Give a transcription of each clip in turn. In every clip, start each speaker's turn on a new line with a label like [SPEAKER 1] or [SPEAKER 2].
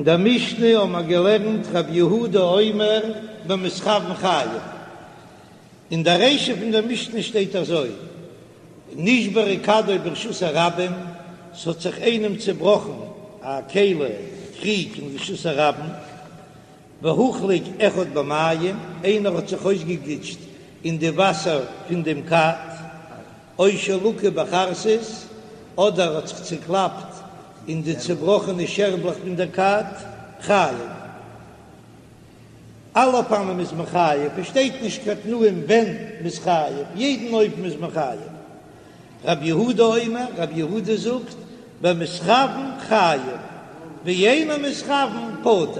[SPEAKER 1] אין דער משנה האבן מיר געלערנט רבי יהודה אומר במתכוין חייב. אין דער רישא פון דער משנה שטייט אזוי, נשברה כדו ברשות הרבים, ס'האט זיך איינעם צעבראכן א כלי קריג אין רשות הרבים, והוחלק אחד במים, איינער האט זיך אויסגעגליטשט אין די וואסער פון דעם כד, או שלקה בחרסית, אדער האט זיך צוקלאפט אין די צובראכענע שערבלעך פון דער כד, חייב. אלע אופנים איז מען חייב, עס שטייט נישט קיין תנאים ווען מ'איז חייב, יעדן אופן איז מען חייב. רבי יהודה אומר, רבי יהודה זאגט, במתכוין חייב, ואינו מתכוין פטור.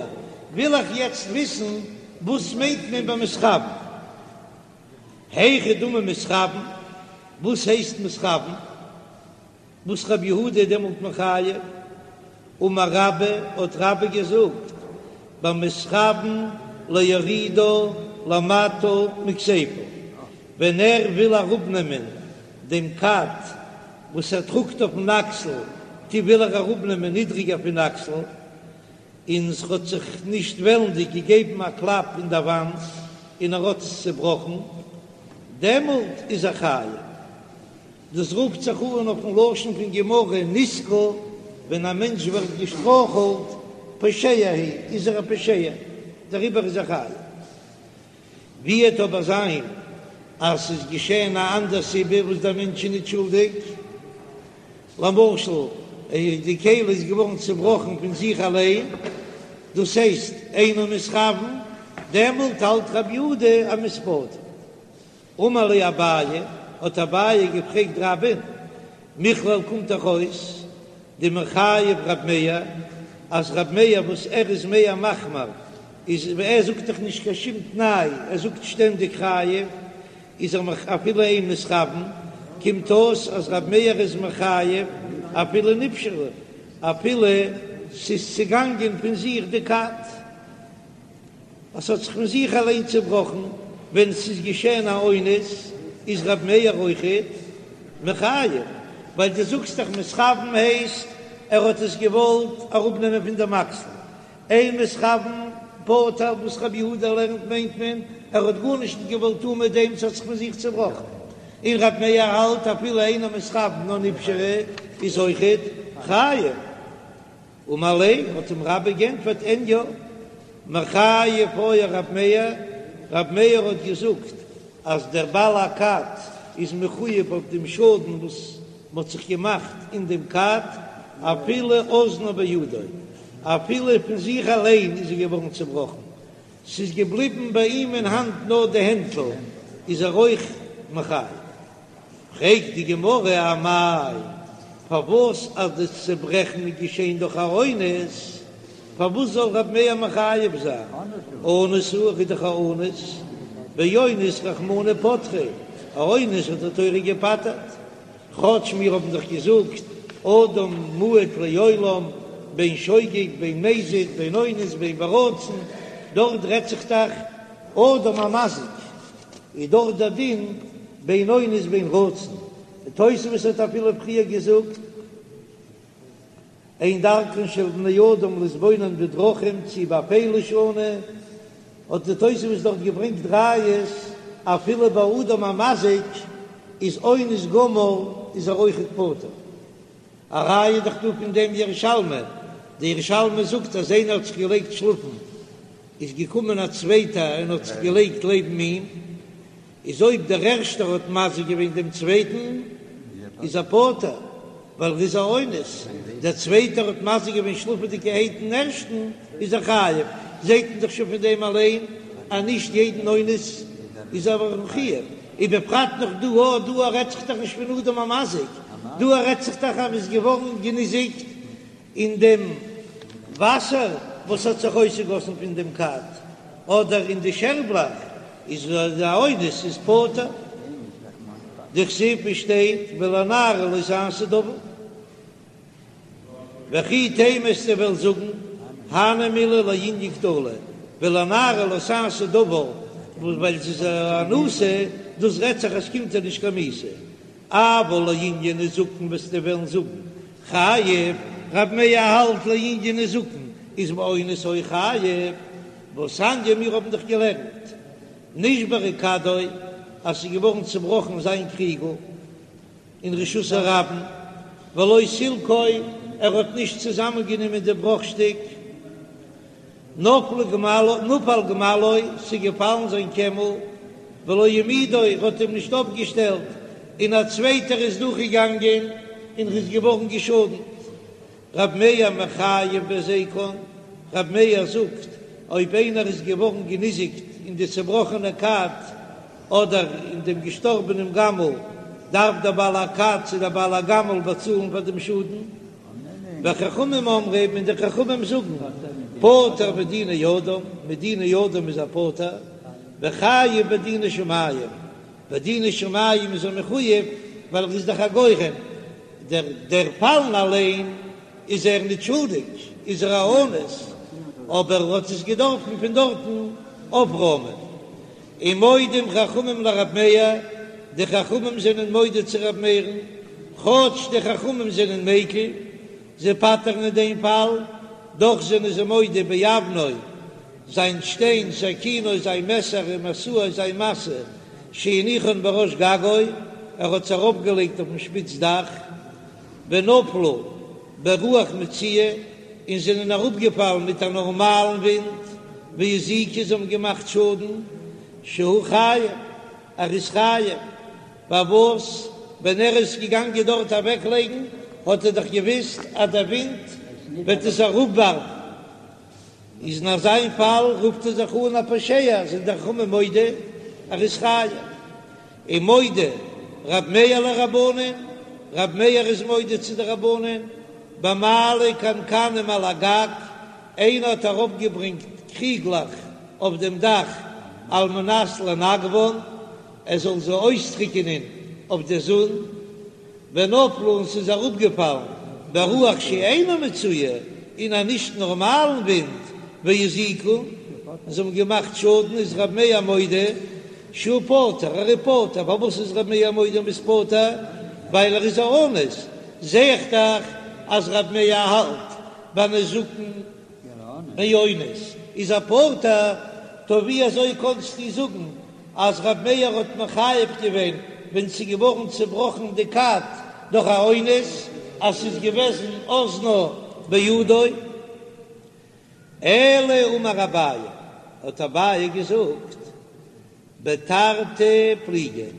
[SPEAKER 1] וויל איך יעצט וויסן וואס מיינט מען במתכוין? היכי דמי מתכוין, וואס הייסט מתכוין? וואס רבי יהודה איז דעמאלט מחייב? אמר רבה, האט רבה געזאגט, במתכוין להורידה למטה מכתפו, ווען ער וויל אראפנעמען דעם כד וואס ער טראגט אויפן אקסל, טא וויל ער אראפנעמען נידריגער פון אקסל, און ס'האט זיך נישט וועלנדיג געגעבן א קלאפ אין דער וואנט און ער האט עס צעבראכן, דעמאלט איז ער חייב. דאס רופט זיך אן אויפן לשון פון גמרא נסקל, ווען א מענטש ווערט געשטרויכלט, פושע הוא, איז ער א פושע, דעריבער איז ער חייב. ווי וועט אבער זיין אז ס'איז געשען א אנדער סיבה וואס דער מענטש איז נישט שולדיג, למשל די כלי איז געווארן צובראכן פון זיך אליין, דאס הייסט אינו מתכוין, דעמאלט האלט רבי יהודה אז מ'איז פטור. אמר ליה אביי, האט אביי געפרעגט רבה'ן, מכלל קומט דאך אויס דמחייב רב מאיר, אז רב מאיר וואס ער איז מער מחמיר, איז ער זאגט דאך נישט קיין שום תנאי, ער זאגט שטענדיג חייב, איז ער מח אפילו אין מתכוין, קומט אויס אז רב מאיר איז מחייב אפילו נפשרה, אפילו ס'איז צעגאנגען פון זיך די כד. אז ס'האט זיך פון זיך אליין צעבראכן ווען ס'איז געשען א אונס, איז רב מאיר אויכעט מחייב, ווייל דו זאגסט דאך מתכוין הייסט ער האט עס געוואלט אראפנעמען פון דעם אקסל, אין מתכוין פטור וואס רבי יהודה לערנט מיינט מען ער האט גארנישט נישט געוואלט טון מיט דעם ס'האט זיך פון זיך צעבראכן, און רב מאיר האלט אפילו אינו מתכוין נאר נפשרה איז אויכעט חייב. אמר ליה, האט אים רבה גענטפערט, אין יא, מחייב היה רב מאיר, רב מאיר האט געזאגט אז דער בעל הכד איז מחויב אויף דעם שאדן וואס מ'האט זיך געמאכט אין דעם כד, אפילו אזנה בידו, אפילו פון זיך אליין איז ער געווארן צעבראכן, ס'איז געבליבן ביי אים אין האנט נאר די הענטל, איז ער אויך מחויב. פרעגט די גמרא אמאי, פארוואס אז די צעברעכן איז געשען דורך א אונס, פארוואס זאל רב מאיר מחייב זיין? אנוס הוא, ער איז דאך א אונס, ואונס רחמנא פטריה, א אונס האט די תורה געפטר'ט, כאטש מיר האבן דאך געזאגט אדם מועד לעולם בין שוגג בין מזיד בין אונס בין ברצון, דארט רעדט זיך דאך אדם המזיק. איז דאך דער דין בין אונס בין רצון, די תוספות האט אפילו פריער געזאגט אין דרכן של בני אדם להתבונן בדרכים צי באפלה שנו, האט די תוספות דארט געברענגט ראיות אפילו ביי אדם המזיק איז אונס גמור איז ער אויכעט פטור. א ראיה איז דאך דא פון דעם ירושלמי, די ירושלמי זאגט אז איינער האט זיך געלייגט שלאפן, איז געקומען א צווייטער און האט זיך געלייגט לעבן אים, איז אויב דער ערשטער האט מזיק געווען דעם צווייטן איז ער פטור, ווייל ער איז א אונס, דער צווייטער האט מזיק געווען שלאפעדיגערהייט דעם ערשטן, איז ער חייב, זעט מען דאך שוין פון דעם אליין אז נישט יעדן אונס איז ער מחויב. ובפרט נאך דא א, דא א רעדט זיך דאך נישט פון אדם המזיק, דא א רעדט זיך דאך אז מ'איז געווארן געניזיקט אין דעם וואסער וואס האט זיך אויסגעגאסן פון דעם כד, אדער אין די שערבלאך, איז א אונס איז פטור. דכתיב ווי שטייט ולנערה לא תעשה דבר. וכי תימא וועסטו וועלן זאגן, הני מילי לענין קטלא, ולנערה לא תעשה דבר, וואס ווייל זי איז א אנוסה, דאס רעדט זיך אז ס'קומט איר נישט קיין מיתה. אבל לענין נזקין וועסטו וועלן זאגן, חייב, רב מאיר האלט לענין נזקין. איז באונס אויך חייב, והתניא מיר האבן דאך געלערנט נשברה כדו אז ס'איז געווארן צובראכן זיין קריגל אין רשות הרבים, ולא סילקו ער האט נישט צוזאמען גענומען די בראך שטיק, נפל גמלו, נפל גמלו, ס'איז געפאלן זיין קעמל, ולא העמידו, ער האט אים נישט אויפגעשטעלט, און א צווייטער איז דורכגעגאנגען און ר'איז געווארן געשאדנט. רב מאיר מחייב בהזיקן, רב מאיר זאגט, אויב איינער איז געווארן געניזיקט אין די צעבראכענע כד אדער אין דעם געשטארבענעם גמל, דארף דער בעל הכד צו דער בעל הגמל באצאלן פאר דעם שאדן. וחכמים אומרים, און די חכמים זאגן, פטור מדיני אדם, מדיני אדם איז ער פטור, וחייב בדיני שמים, בדיני שמים איז ער מחויב, ווייל ער איז דאך א גורם, דער דער פאלן אליין איז ער ניט שולדיג, איז ער א אונס, אבער ער האט עס געדארפן פון דארטן אויפראמען. ומודים חכמים לרב מאיר, די חכמים זענען מודה צו רב מאיר'ן, כאטש די חכמים זענען מיקל, זיי פטר'ן אין דעם פאל, דאך זענען זיי מודה באבנו, זיין שטיין, סכינו, זיין מעסער, ומשאו, זיין משא, שהניחן בראש גגו, ער האט עס ארויפגעלייגט אויפן שפיץ דאך, ונפלו ברוח מצויה, און זענען אראפגעפאלן מיט א נארמאלן ווינט, והזיקו, זיי האבן געמאכט שאדן, שהוא חייב, ער איז חייב, פארוואס ווען ער איז געגאנגען דארט אוועקלייגן האט ער דאך געוויסט אז דער ווינט וועט עס אראפווארפן, איז אין אזא פאל רופט ער זיך אן א פושע, זענען די חכמים מודה ער איז חייב. ומודה רב מאיר לרבנן, רב מאיר איז מודה צו די רבנן, במעלה קנקנים על הגג, איינער האט ארויפגעברענגט קריגלעך אויף דעם דאך על מנת לנגבן, ער זאל זיי אויסטריקענען אויף די זון, ונפלו און ס'איז אראפגעפאלן ברוח שאינה מצויה, אין א נישט נארמאלן ווינט, והזיקו, און זיי האבן געמאכט שאדן, איז רב מאיר מודה שהוא פטור, ער איז פטור, פארוואס איז רב מאיר מודה מ'איז פטור? ווייל ער איז א אונס, זע איך דאך אז רב מאיר האלט ביי נזקין מאונס איז ער פטור, טא ווי אזוי קאנסטו זאגן אז ר' מאיר האט מחייב געווען ווען ס'איז געווארן צובראכן די כד דורך א אונס אז ס'איז געוועזן אזנה בידו? אלא אמר אביי, האט אביי געזאגט בתרתי פליגי,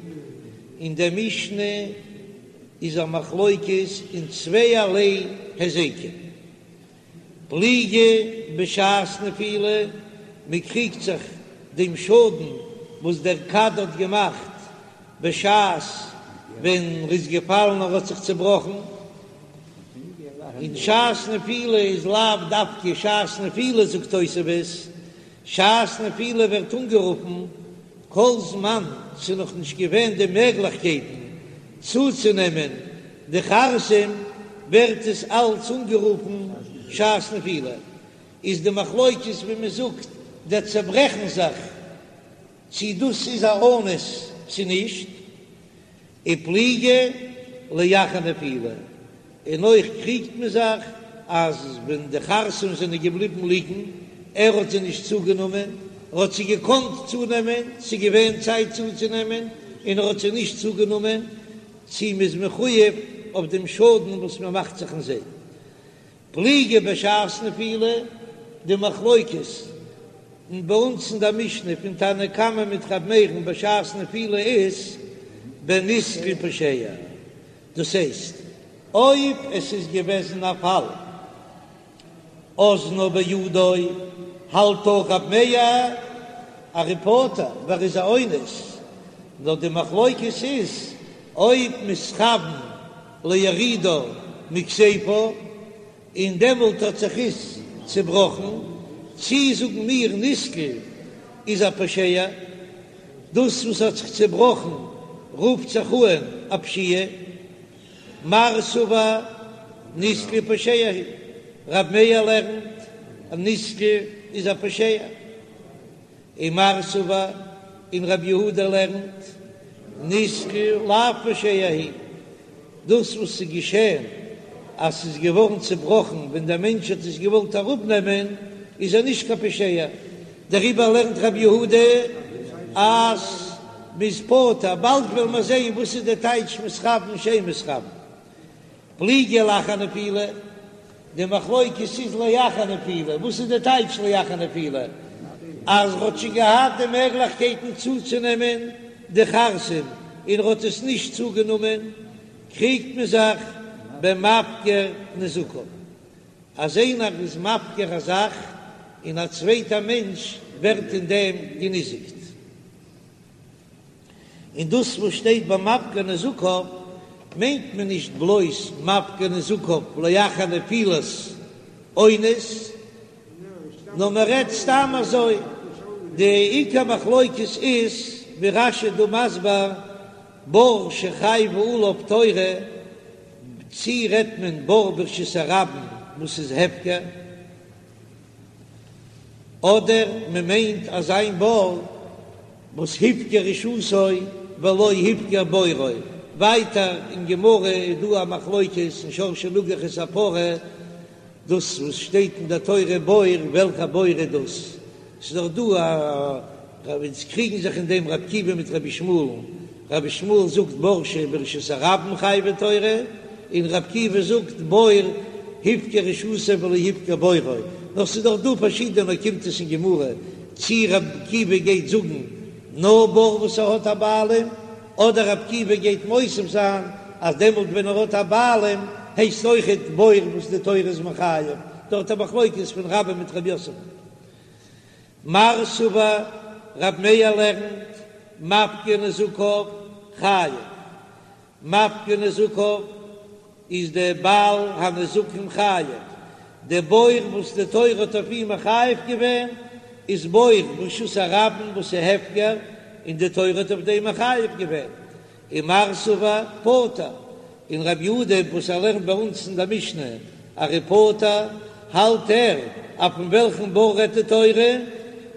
[SPEAKER 1] אין דער משנה איז א מחלוקת אין צווייערליי היזקים. פליגי בשעת נפילה, מען קריגט זיך דעם שאדן וואס דער כד האט געמאכט בשעת ווען ר'איז געפאלן און ר'האט זיך צעבראכן, און שעת נפילה איז לאו דווקא שעת נפילה זאגט תוספות, שעת נפילה ווערט אנגערופן כל זמן ס'איז נאך נישט געווען די מעגליכקייטן צוצונעמען די חרסים ווערט עס אלץ אנגערופן שעת נפילה, איז די מחלוקת ווי מען זאגט דער צעברעכן זיך צי דאס איז א אונס צי נישט. ופליגי לאחר נפילה, און אויך קריגט מען זיך אז ווען די חרסים זענען געבליבן ליגן, ער האט זיי נישט צוגענומען, ער האט זיי געקאנט צונעמען, ס'איז געווען צייט צוצונעמען, און ער האט זיי נישט צוגענומען, צי מ'איז מחויב אויף דעם שאדן וואס מ'מאכט זיך אין זיי. פליגי בשעת נפילה, די מחלוקת אין ביי אונז אין דער משנה פון תנא קמא מיט ר' מאיר'ן בשעת נפילה איז בנתקל פושע, דאס הייסט אויב עס איז געוועזן א פאל אזנה בידו האלט אויך ר' מאיר ער איז פטור ווייל ער איז א אונס, נאר די מחלוקת איז אויב מתכוון להורידה מכתפו, און דעמאלט האט זיך עס צעבראכן, צי זאגן מיר נתקל איז א פושע, דאס וואס האט זיך צעבראכן רופט זיך אן א פשיעה, מר סבר נתקל פושע הוא, רב מאיר לערנט אז נתקל איז א פושע. ומר סבר, און רב יהודה לערנט, נתקל לאו פושע הוא, דאס וואס איז געשען. אז ס'איז געווארן צובראכן ווען דער מענטש האט עס געוואלט אראפנעמען, איז ער נישט קיין פושע, דעריבער לערנט רבי יהודה אז מ'איז פטור, באלד וועלן מיר זען וואס איז די טייטש מתכוין שאין מתכוין. פליגי לאחר נפילה, די מחלוקת איז לאחר נפילה, וואס איז די טייטש לאחר נפילה? אז ר'האט שוין געהאט די מעגליכקייטן צוצונעמען די חרסים און ר'האט עס נישט צוגענומען, קריגט מען זיך במפקיר נזקיו, אז איינער איז מפקיר א זאך און א צווייטער מענטש ווערט אין דעם געניזיקט. און דאס וואס שטייט ביי מפקיר נזקיו מיינט מען נישט בלויז מפקיר נזקיו לאחר נפילת אונס, נאר מען רעדט סתם אזוי, די עיקר מחלוקת איז ווי רש"י דא מסביר בור שחייבה עליו תורה, צי רעדט מען בור ברשות הרבים וואס איז הפקר, אדער מען מיינט אזא בור וואס הפקיר רשותו ולא הפקיר בורו, ווייטער אין גמרא איז דא א מחלוקת אין שור שנגח את הפרה, דאס וואס שטייט אין דער תורה בור, וועלכע בור איז דאס? ס'איז דאך דא א רב, ס'קריגן זיך אין דעם רבי עקיבא מיט רבי ישמעאל'ן, רבי ישמעאל זאגט בור שברשות הרבים חייבה תורה, און רבי עקיבא זאגט בור הפקיר רשותו ולא הפקיר בורו, נאר ס'איז דאך דא פארשידענע אוקימתות אין גמרא צי רבי עקיבא גייט זאגן נאר בור וואס ער האט א בעלים, אדער רבי עקיבא גייט מוסיף זיין אז דעמאלט ווען ער האט א בעלים הייסט אויכעט בור וואס די תורה איז מחייב, דארט א מחלוקת פון רבה מיט רב יוסף. מר סבר רב מאיר לערנט מפקיר נזקיו חייב, מפקיר נזקיו איז דער בעל הנזקים חייב, דער בור וואס די תורה האט אויף אים מחייב געווען איז בור ברשות הרבים וואס איז הפקר און די תורה האט אויף דעם מחייב געווען, ומר סבר פטור, און רבי יהודה וואס ער לערנט ביי אונז אין דער משנה אז ער איז פטור, האלט ער אז פון וועלכן בור רעדט די תורה,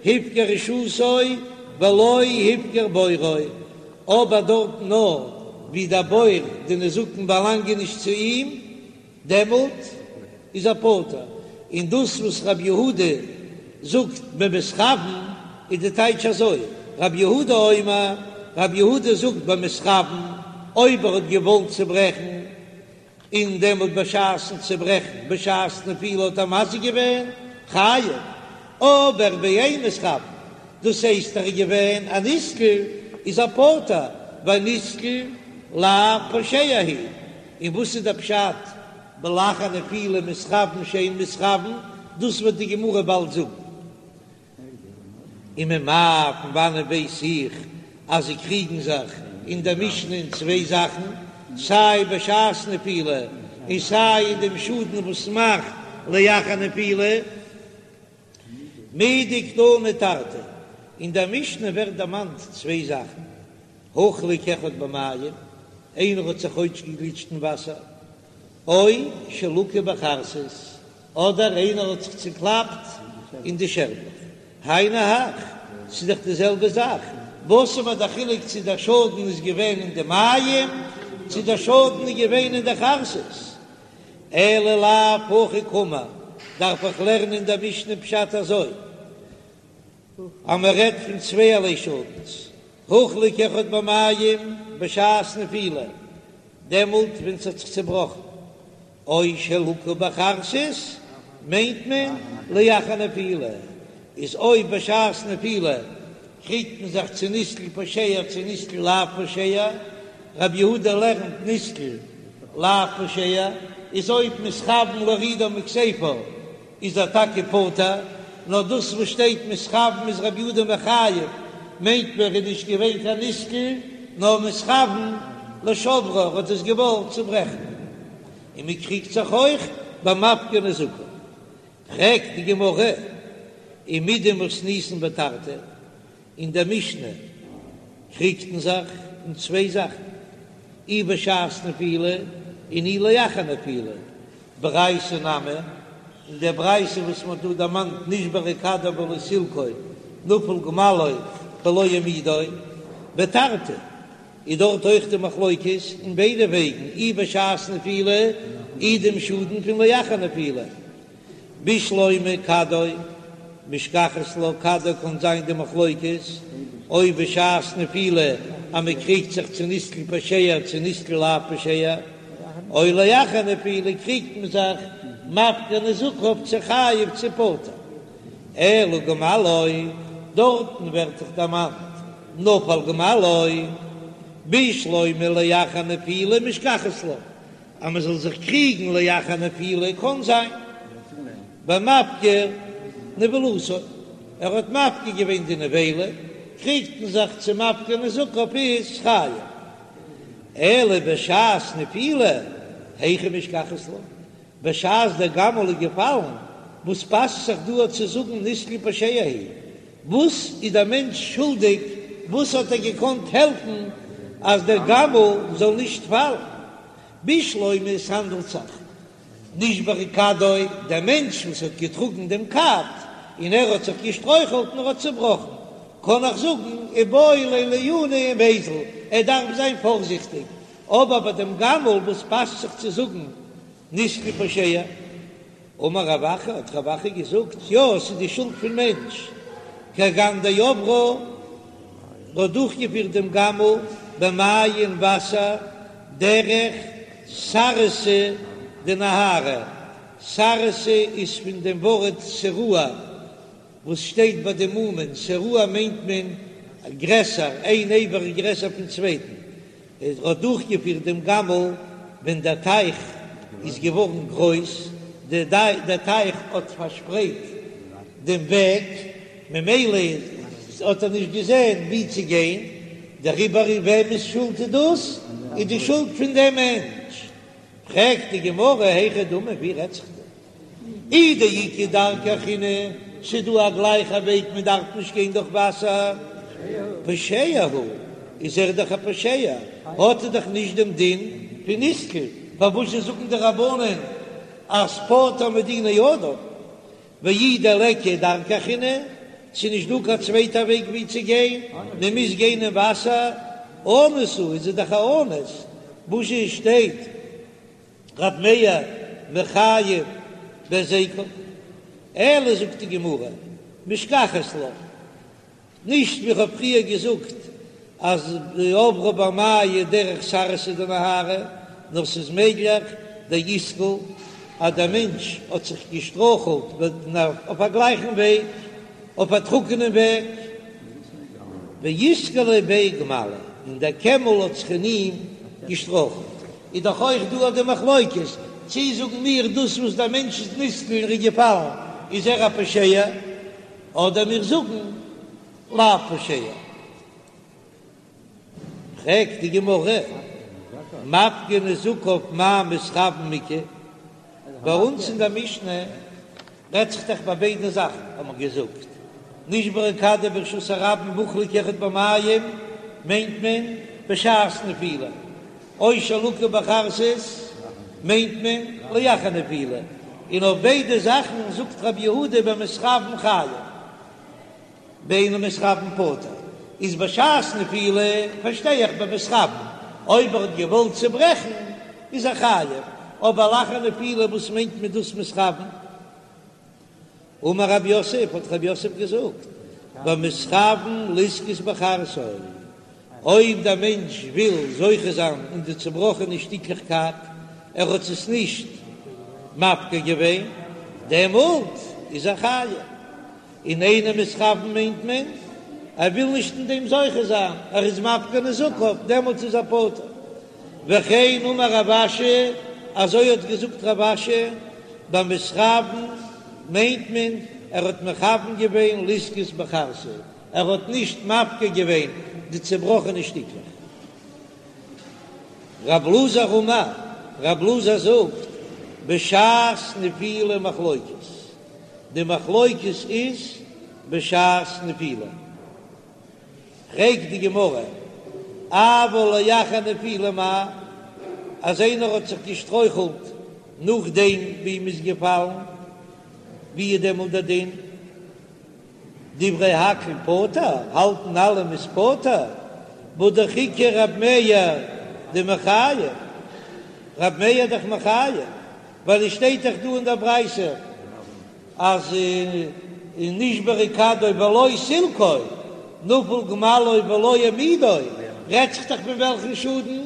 [SPEAKER 1] הפקיר רשותו ולא הפקיר בורו, אבער דארטן נאר ווי דער בור די נזקין באלאנגען נישט צו אים, דעמאלט איז ער פטור, און דאס וואס רבי יהודה זאגט במתכוין איז די טייטש אזוי, רבי יהודה אומר, רבי יהודה זאגט במתכוין, אויב ער האט געוואלט צוברעכן, און דעמאלט בשעת'ן צוברעכן, בשעת נפילה האט ער מזיק געווען, חייב, אבער באין מתכוין, דאס הייסט ער איז געווען א נתקל, איז ער פטור, ווייל נתקל לאו פושע הוא. און וואס איז דער פשט בלאחר נפילה מתכוין שאין מתכוין, דאס וועט די גמרא באלד זאגן. וממאי פון וואנען ווייס איך אז זיי קריגן זיך אין דער משנה אין צוויי זאכן, סיי בשעת נפילה און סיי אין דעם שאדן וואס מאכט לאחר נפילה? מדקתני תרתי, אין דער משנה ווערט דערמאנט צוויי זאכן, הוחלק אחד במים, איינער האט זיך אויסגעגליטשט אין וואסער, או שלקה בחרסית, אדער איינער האט זיך צוקלאפט אין די שערבלעך, היינו הך, ס'איז דאך די זעלבע זאך, וואס איז מיר דער חילוק צו דער שאדן איז געווען אין די מים, צו דער שאדן איז געווען אין די חרסית? אלא לאו הכי קאמר, דארף איך לערנען אין דער משנה פשט אזוי, אז מען רעדט פון צווייערליי שאדנס, הוחלק אחד במים בשעת נפילה, דעמאלט ווען ס'האט זיך צעבראכן, או שלקה בחרסית מיינט מען לאחר נפילה, איז אויב בשעת נפילה קריגט מען זיך צו נתקל פושע צו נתקל לאו פושע, רבי יהודה לערנט נתקל לאו פושע, איז אויב מתכוין להורידה מכתפו איז ער טאקע פטור, נאר דאס וואס שטייט מתכוין איז רבי יהודה מחייב, מיינט מען ער איז נישט געווען קיין נתקל, נאר מתכוין לשוברה, ער האט עס געוואלט צוברעכן. און מען קריגט זיך אויך ביי מפקיר נזקיו. פרעגט די גמרא, ומדמתניתין בתרתי, אין דער משנה קריגט מען זיך אין צוויי זאכן, אי בשעת נפילה און אי לאחר נפילה, ברייתא נמי, אין דער ברייתא וואס מען האט דא דערמאנט נשברה כדו ולא סילקו נפל גמלו ולא העמידו, בתרתי. איז דארט אויך די מחלוקת אין ביידע וועגן, אי בשעת נפילה אי דעם שאדן פון לאחר נפילה. בשלמא כדו משכחת לה כדו קאן זיין די מחלוקת אויב בשעת נפילה אז מען קריגט זיך צו נתקל פושע צו נתקל לאו פושע, או לאחר נפילה קריגט מען זיך מפקיר נזקיו צו חייב צו פטור. אלא גמלו, דארטן ווערט דאך דערמאנט נפל גמלו, בשלמא לאחר נפילה משכחת לה, אז מען זאל זיך קריגן לאחר נפילה קאן זיין במפקיר נבלתו, ער האט מפקיר געווען די נבילה, קריגט מען זיך צו מפקיר נזקיו איז חייב, אלא בשעת נפילה היכי משכחת לה, בשעת דער גמל איז געפאלן, וואס פאסט זיך דא צו זאגן נתקל פושע הוא? וואס איז דער מענטש שולדיג? וואס האט ער געקאנט העלפן אז דער גמל זאל נישט פאלן? בשלמא עס האנדלט זיך נשברה כדו, דער מענטש וואס האט געטראגן דעם כד און ער האט זיך געשטרויכלט און ער האט צובראכן, קען איך זאגן איבעי ליה לעיוני ומיזל, ער דארף זיין פארזיכטיג, אבער ביי דעם גמל וואס פאסט זיך צו זאגן נתקל פושע? אמר רב אחא, האט רב אחא געזאגט, יא, ס'איז די שולד פון מענטש, כגון דעברה, האט דורכגעפירט דעם גמל במיא אין וואסער דרך סרסי דנהרא, סרסי איז פון דעם ווארט שרוע, וואס שטייט ביי די מומין, שרוע מיינט מען גרעסער, איין אבר איז גרעסער פון צווייטן, ער האט דורכגעפירט דעם גמל ווען דער טייך איז געווארן גרויס, דער טייך האט פארשפרייט דעם וועג, ממילא האט ער נישט געזען ווי צו גיין, דעריבער וועמענס שולד איז דאס? איז די שולד פון דעם מענטש. פרעגט די גמרא היכי דמי, ווי רעדט זיך דא? אי דאיכא דרכא אחרינא, ס'איז דא א גלייכע וועג מען דארף נישט גיין דורך וואסער, פושע הוא, איז ער דאך א פושע, האט ער דאך נישט דעם דין פון נתקל, פארוואס זאגן די רבנן אז פטור מדיני אדם, ואי דליכא דרכא אחרינא, ס'איז נישט דא קיין צווייטע וועג ווי צו גיין, מען מוז גיין אין וואסער, אנוס הוא, איז ער דאך א אנוס, וואס שטייט. רב מאיר מחייב בהזיקן, אלא זאגט די גמרא, משכחת לה, נישט ווי כ'האב פריער געזאגט אז עברה במיא דרך סרסי דנהרא, נאר ס'איז מעגליך דאתקיל אז דער מענטש האט זיך געשטרויכלט אויף א גלייכן וועג, אויף א טרוקענעם וועג, ואתקליה ביה גמלא, און דער קעמל האט זיך אין אים געשטרויכלט. איז דאך אויך דא אט די מחלוקת, צי זאגן מיר דאס וואס דער מענטש איז נתקל און איז געפאלן איז ער א פושע, אדער מיר זאגן לאו פושע. פרעגט די גמרא, מפקיר נזקיו מאי מתכוין איכא? ביי אונז אין דער משנה רעדט זיך דאך ביי ביידע זאכן, האט מען געזאגט, נשברה כדו ברשות הרבים והוחלק אחד במים, מיינט מען בשעת נפילה, או שלקה בחרסית מיינט מען לאחר נפילה, און אויף ביידע זאכן זאגט רבי יהודה במתכוין חייב, באינו מתכוין פטור, איז בשעת נפילה פארשטיי איך במתכוין, אויב ער האט געוואלט צוברעכן איז ער חייב, אבער לאחר נפילה וואס מיינט מען דאס מתכוין? אמר רב יוסף, האט רב יוסף געזאגט, במתכוין לזכות בחרסו, אויב דער מענטש וויל זוכה זיין אין די צובראכענע שטיקלעך כד, ער האט עס נישט מפקיר געווען, דעמאלט איז ער חייב. און אינו מתכוין מיינט מען, ער וויל נישט אין דעם זוכה זיין, ער איז מפקיר נזקיו, דעמאלטס איז ער פטור. וכן אמר רב אשי, אזוי האט געזאגט רב אשי, במתכוין מיינט מען, ער האט מכוון געווען לזכות בחרסו, ער האט נישט מפקיר געווען די צעבראכענע שטיקלעך. רב אלעזר אמר, רב אלעזר זאגט, בשעת נפילה מחלוקת, די מחלוקת איז בשעת נפילה. פרעגט די גמרא, אבל לאחר נפילה מאי, אז איינער האט זיך געשטרויכלט נאכדעם ווי מ'איז געפאלן, ווי איז דעמאלט דער דין? דברי הכל פטור, האלטן אלע מ'איז פטור? והא דאך איכא רב מאיר דמחייב, רב מאיר איז דאך מחייב, ווייל עס שטייט דאך דא אין דער ברייתא אז נשברה כדו ולא סילקו, נפל גמלו ולא העמידו, רעדט זיך דאך פון וועלכן שאדן?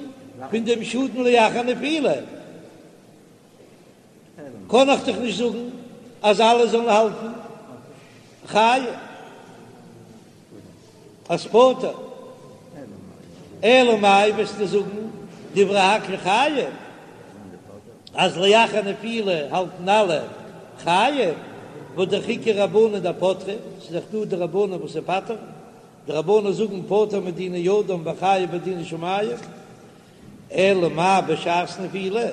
[SPEAKER 1] פון דעם שאדן לאחר נפילה. קען איך דאך נישט זאגן אז אלע זאלן האלטן חייב אז פטור. אלא מאי וועסטו זאגן דברי הכל חייב, אז לאחר נפילה האלטן אלע חייב, והא דאך איכא רבנן דפטרי, ס'איז דאך דא די רבנן וואס פטר'ן, די רבנן זאגן פטור מדיני אדם וחייב בדיני שמים. אלא מאי בשעת נפילה,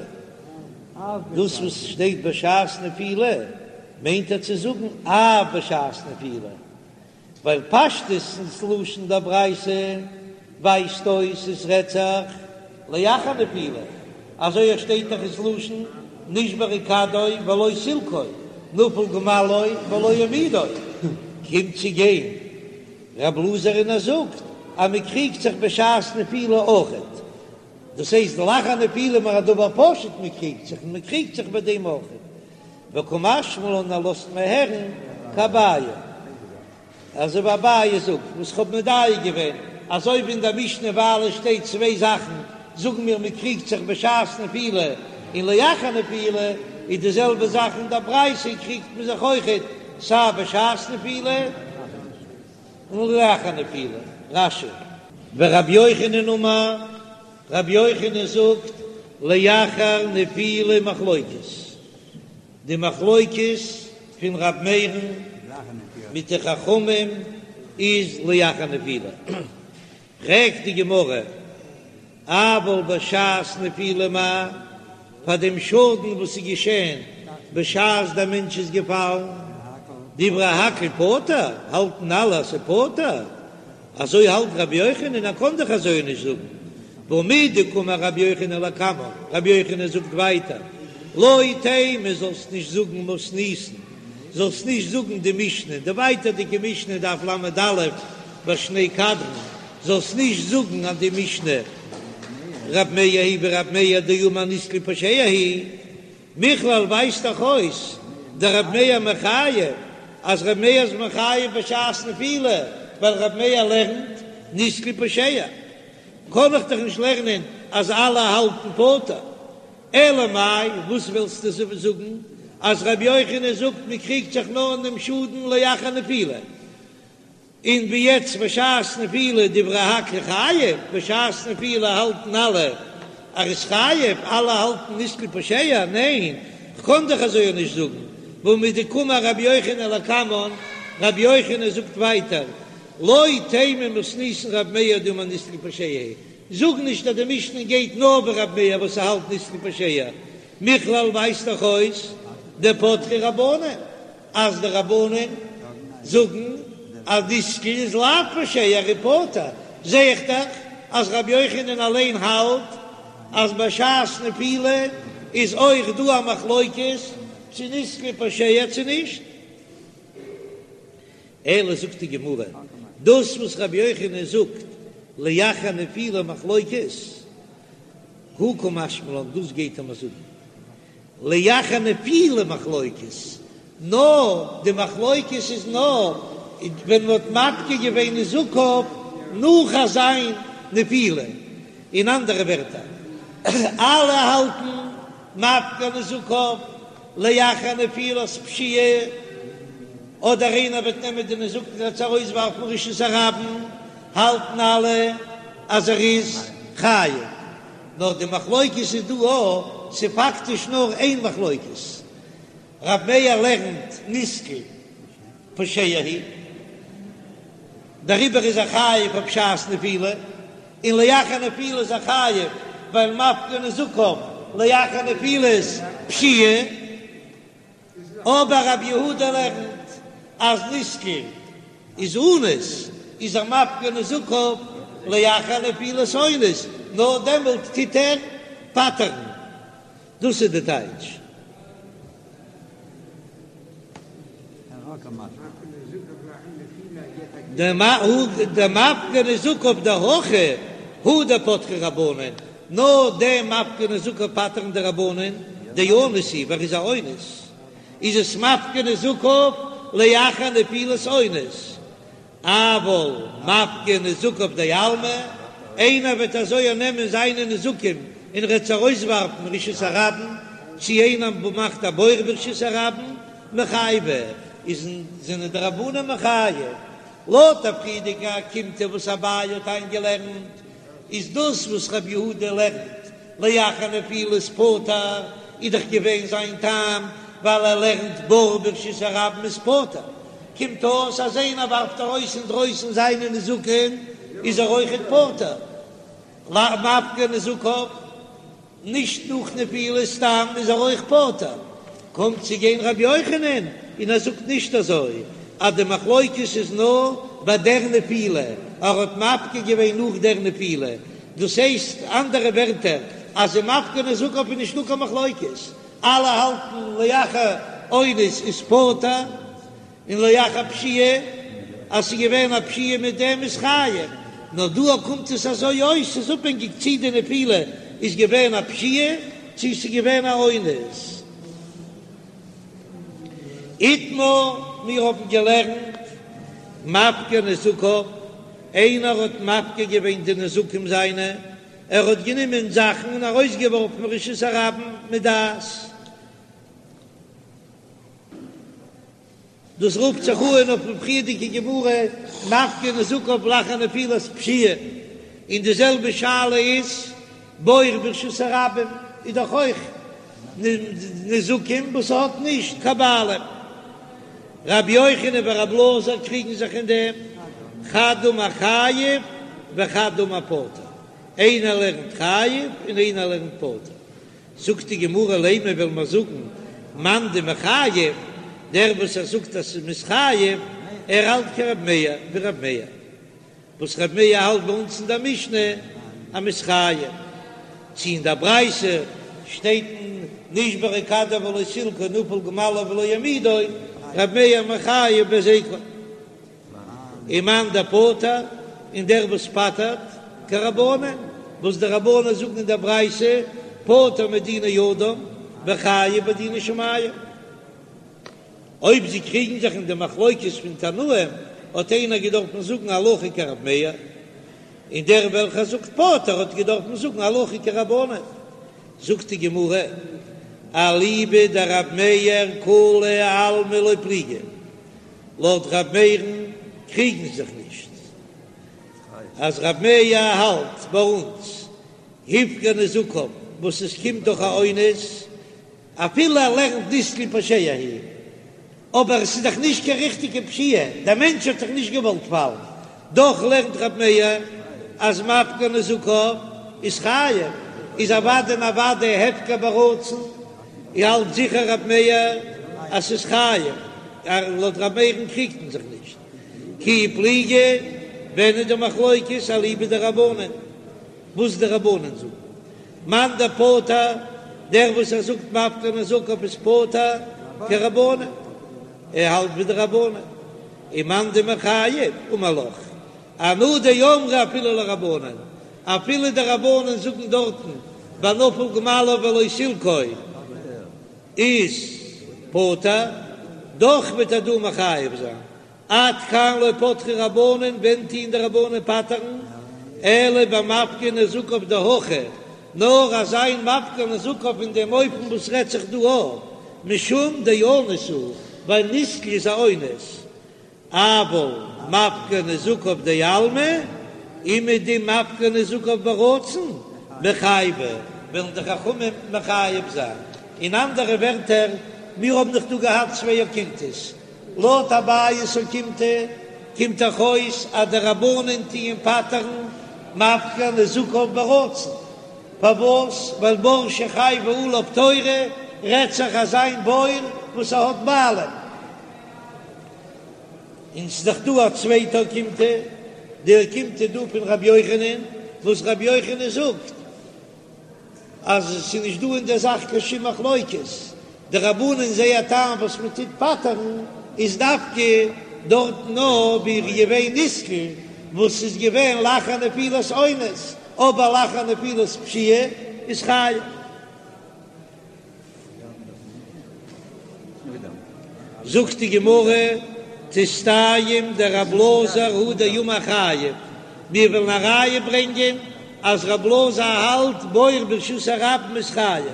[SPEAKER 1] דאס וואס שטייט בשעת נפילה מיינט ער צו זאגן אף בשעת נפילה, ווייל פשטות ס'לשון דער ברייתא ווייזט אויס עס רעדט זיך לאחר נפילה, אזוי עס שטייט דאך ס'לשון נשברה כדו ולא סילקו, נפל גמלו ולא העמידו, קומט צו גיין רב אלעזר און ער זאגט אז מען קריגט זיך בשעת נפילה אויכעט, דאס הייסט לאחר נפילה איז א דבר פשוט מען קריגט זיך און מען קריגט זיך ביי דעם אויכעט, וקא משמע לן ער לאזט מיר הערן כאביי, אזוי ווי אביי זאגט וואס כ'האב מדייק געווען אזוי ווי אין דער משנה ווייל עס שטייט צוויי זאכן זאגן מיר מען קריגט זיך בשעת נפילה און לאחר נפילה, איז די זעלבע זאך אין דער ברייתא קריגט מען זיך אויכעט סיי בשעת נפילה און לאחר נפילה. רש"י. ורבי יוחנן אמר, רבי יוחנן זאגט, לאחר נפילה מחלוקת, די מחלוקת פון ר' מאיר'ן מיט די חכמים איז לאחר נפילה. פרעגט די גמרא, אבל בשעת נפילה מאי, פאר דעם שאדן וואס איז געשען בשעת דער מענטש איז געפאלן, דברי הכל פטור, האלטן אלע אז ס'איז פטור, אזוי האלט רבי יוחנן, ער קען דאך אזוי נישט זאגן, והא מדקאמר רבי יוחנן לקמן, רבי יוחנן זאגט ווייטער, לא תימא זאלסט נישט זאגן מתניתין, זאלסט נישט זאגן די משנה, די ווייטערדיגע משנה דף ל"א בשני קדרין, זאלסט נישט זאגן אז די משנה רב מאיר היא ווי רב מאיר דאמר נסקל פושע הוא, מכלל ווייזט דאך אויס דרב מאיר מחייב אז רב מאיר איז מחייב בשעת נפילה ווייל רב מאיר לערנט נסקל פושע, קען איך דאך נישט לערנען אז אלע האלטן פטור, אלא מאי וואס ווילסטו זאגן אז רבי יוחנן זאגט מען קריגט זיך נאר אין דעם שאדן לאחר נפילה, און ווי יעצט בשעת נפילה דברי הכל חייב, בשעת נפילה האלטן אלע אז ער איז חייב, אלע האלטן נסקל פושע, ניין, כ'קען דאך אזוי נישט זאגן, והא מדקאמר רבי יוחנן לקמן, רבי יוחנן זאגט ווייטער, לא תימא מתניתין רב מאיר דאמר נסקל פושע, זאג נישט אז די משנה גייט נאר ווי רב מאיר וואס ער האלט נסקל פושע, מכלל ווייזט דאך אויס דפטרי רבנן. אז די רבנן זאגן אז נסקל איז לאו פושע ער איז פטור, זע איך דאך אז רבי יוחנן אליין האלט אז בשעת נפילה איז אויך דא א מחלוקת צו נסקל פושע צו נישט. אלא זאגט די גמרא, דאס וואס רבי יוחנן זאגט לאחר נפילה מחלוקת, הא קא משמע לן, דאס גייט ער מיר זאגן לאחר נפילה מחלוקת, נאר די מחלוקת איז נאר ווען מען האט מפקיר געווען נזקיו נאך אזיין נפילה, אין אנדערע ווערטער אלע האלטן מפקיר נזקיו לאחר נפילת פשיעה, אדער איינער וועט נעמען די נזקין און עס ארויסווארפן רשות הרבים, האלטן אלע אז ער איז חייב. נאר די מחלוקת איז דא א, ס'איז פאקטיש נאר איין מחלוקת, רב מאיר לערנט נסקל פושע הוא, דעריבער איז ער חייב אויף בשעת נפילה, און לאחר נפילה איז ער חייב ווייל מפקיר נזקיו לאחר נפילת פשיעה. אבער רבי יהודה לערנט אז נסקל איז אנוס, איז ער מפקיר נזקיו לאחר נפילת אונס, נאר דעמאלט טוט ער פטר'ן. דאס איז די טייטש. דמפקיר נזקיו דהכא הוא דפטרי רבנן, נאר דעם מפקיר נזקיו פטר'ן די רבנן, דאנוס הוא, ווייל ער איז א אונס, איז עס מפקיר נזקיו לאחר נפילת אונס, אבל מפקיר נזקיו דעלמא, איינער וועט אזוי נעמען זיינע נזקים און ער וועט עס ארויסווארפן רשות הרבים, צי איינער מאכט א בור ברשות הרבים, מיחייבי, איז זענען די רבנן מחייב. לויט א פריערדיגע אוקימתא וואס אביי האט איינגעלערנט, איז דאס וואס רבי יהודה לערנט לאחר נפילת פטור, איז דאך געווען זיין טעם ווייל ער לערנט בור ברשות הרבים איז פטור, קומט אויס אז איינער ווארפט ארויס אינדרויסן זיינע נזקין איז ער אויכעט פטור, מפקיר נזקיו. נישט נאך נפילה סתם איז ער אויך פטור, קומט צו גיין רבי יוחנן און ער זאגט נישט אזוי אז די מחלוקת איז נאר ביי דער נפילה, ער האט מפקיר געווען נאך דער נפילה, דאס הייסט אנדערע ווערטער אז אין מפקיר נזקיו איז נישטא קיין מחלוקת, אלע האלטן לאחר אונס איז פטור. און לאחר פשיעה, אז ס'איז געווען א פשיעה מיט דעם איז חייב, נאר דא קומט עס אזוי אויס, ס'איז אפהענגיק צי די נפילה איז געווען א פשיעה צי ס'איז געווען א אונס. איתמר, מיר האבן געלערנט מפקיר נזקיו, איינער האט מפקיר געווען די נזקים זיינע, ער האט גענומען זאכן און ארויסגעווארפן רשות הרבים מדעת. דאס רופט זיך אן אויפן פריערדיגע גמרא מפקיר נזקיו לאחר נפילת פשיעה, און די זעלבע שאלה איז בור ברשות הרבים איז דאך אויך נזקים וואס האט נישט קיין בעלים. רבי יוחנן ורבי אלעזר קריגן זיך אין דעם, חד אמר חייב וחד אמר פטור, איינער לערנט חייב און איינער לערנט פטור. זאגט די גמרא לימא וועל מיר זאגן מאן דמחייב, דער וואס ער זאגט אז ס'איז חייב, ער האלט כרב מאיר ווי רב מאיר, וואס רב מאיר האלט ביי אונז אין דער משנה אז מ'איז חייב, צו אין דער ברייתא שטייט נשברה כדו ולא סילקו נפל גמלו ולא העמידו, רב מאיר מחייב בהזיקו. ומאן דפטר, און דער וואס פטר'ט, כרבנן, וואס די רבנן זאגן אין דער ברייתא, פטור מדיני אדם וחייב בדיני שמים. אויב זיי קריגן זיך אין די מחלוקת פון תנאים, האט איינער געדארפן זאגן הלכה כרב מאיר, און דער וועלכער זאגט פטור האט געדארפן זאגן הלכה כרבנן. זאגט די גמרא, אליבא דרב מאיר כולי עלמא לא פליגי. לויט ר' מאיר'ן קריגן זיך נישט אז ר' מאיר האלט ביי אונז הפקיר נזקיו וואס עס קומט דורך א אונס אפילו ער לערנט נתקל פושע הוא אבער עס איז דאך נישט קיין ריכטיגע פשיעה דער מענטש האט זיך נישט געוואלט פאלן דאך לערנט ר' מאיר אז מפקיר נזקיו איז חייב איז אוודאי און אוודאי הפקר ברצון האלט זיכער ר' מאיר אז ס'איז חייב. לויט ר' מאיר'ן קריגט מען זיך נישט. כי פליגי, ווען איז די מחלוקת אליבא דרבנן? וואס די רבנן זאגן? מאן דפטר, דער וואס ער זאגט מפקיר נזקיו איז פטור כרבנן, ער האלט ווי די רבנן. ומאן דמחייב אמר לך, אנא דאמרי אפילו לרבנן, אפילו די רבנן זאגן דארטן ביי נפל גמלו ולא סילקו, איז פטור, דאך וועט ער דא מחייב זיין, עד כאן לא פטרי רבנן, ווען טוען די רבנן פטר'ן, אלא במפקיר נזקיו דהכא, נאר אזא איין מפקיר נזקיו אין דעם אופן וואס רעדט זיך דא אויף, משום דאנוס הוא, ווייל נתקל איז א אונס, אבל מפקיר נזקיו דעלמא, אומעדום מפקיר נזקיו ברצון, מיחייבי, וועלן די חכמים מחייב זיין. אין אנדערע ווערטער, מיר האבן דאך דא געהאט צוויי אוקימתות. לויט אביי'ס אוקימתא קומט דאך אויס אז די רבנן טוען פטר'ן מפקיר נזקיו ברצון. פארוואס? ווייל בור שחייבה עליו תורה רעדט זיך אזא איין בור וואס ער האט בעלים. און ס'איז דאך דא א צווייטע אוקימתא, די אוקימתא דא פון רבי יוחנן, וואס רבי יוחנן זאגט אז ס'איז נישט דא אין דער זאך קיין שום מחלוקת, די רבנן זייער טעם וואס מען טוט פטר'ן איז דווקא. דארטן נאר ווי ער איז געווען נתקל וואס איז געווען לאחר נפילת אונס, אבער לאחר נפילת פשיעה איז חייב. זאגט די גמרא, תסתיים דרב אלעזר הוא דאמר חייב, מיר וועלן א ראיה ברענגען אז רב אלעזר האלט בור ברשות הרבים איז חייב.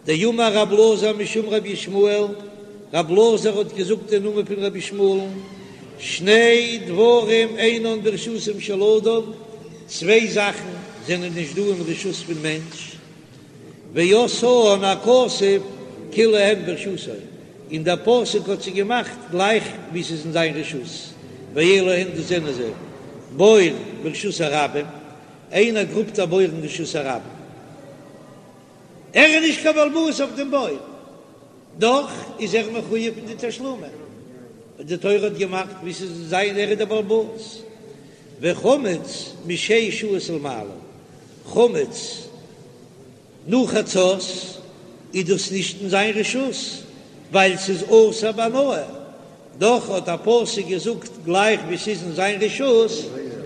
[SPEAKER 1] דאמר רב אלעזר משום רבי ישמעאל, רב אלעזר האט געזאגט אין נאמען פון רבי ישמעאל'ן, שני דברים אינן ברשותו של אדם, צוויי זאכן זענען נישט דא אין רשות פון מענטש, ועשאן הכתוב כאילו הן ברשותו, און דער פסוק האט זיי געמאכט גלייך ווי ס'איז אין זיין רשות, ואלו הן דאס זענען זיי, בור ברשות הרבים, איינער גראבט א בור אין רשות הרבים, ער איז נישט קיין בעל הבית אויף דעם בור, דאך איז ער מחויב אין די תשלומים, די תורה האט געמאכט ווי ס'איז זיין ער איז דער בעל הבית, וחמץ משש שעות ולמעלה, חמץ נאך חצות איז דאס נישט אין זיין רשות ווייל ס'איז אסור בהנאה, דאך האט א פסוק געזאגט גלייך ווי ס'איז אין זיין רשות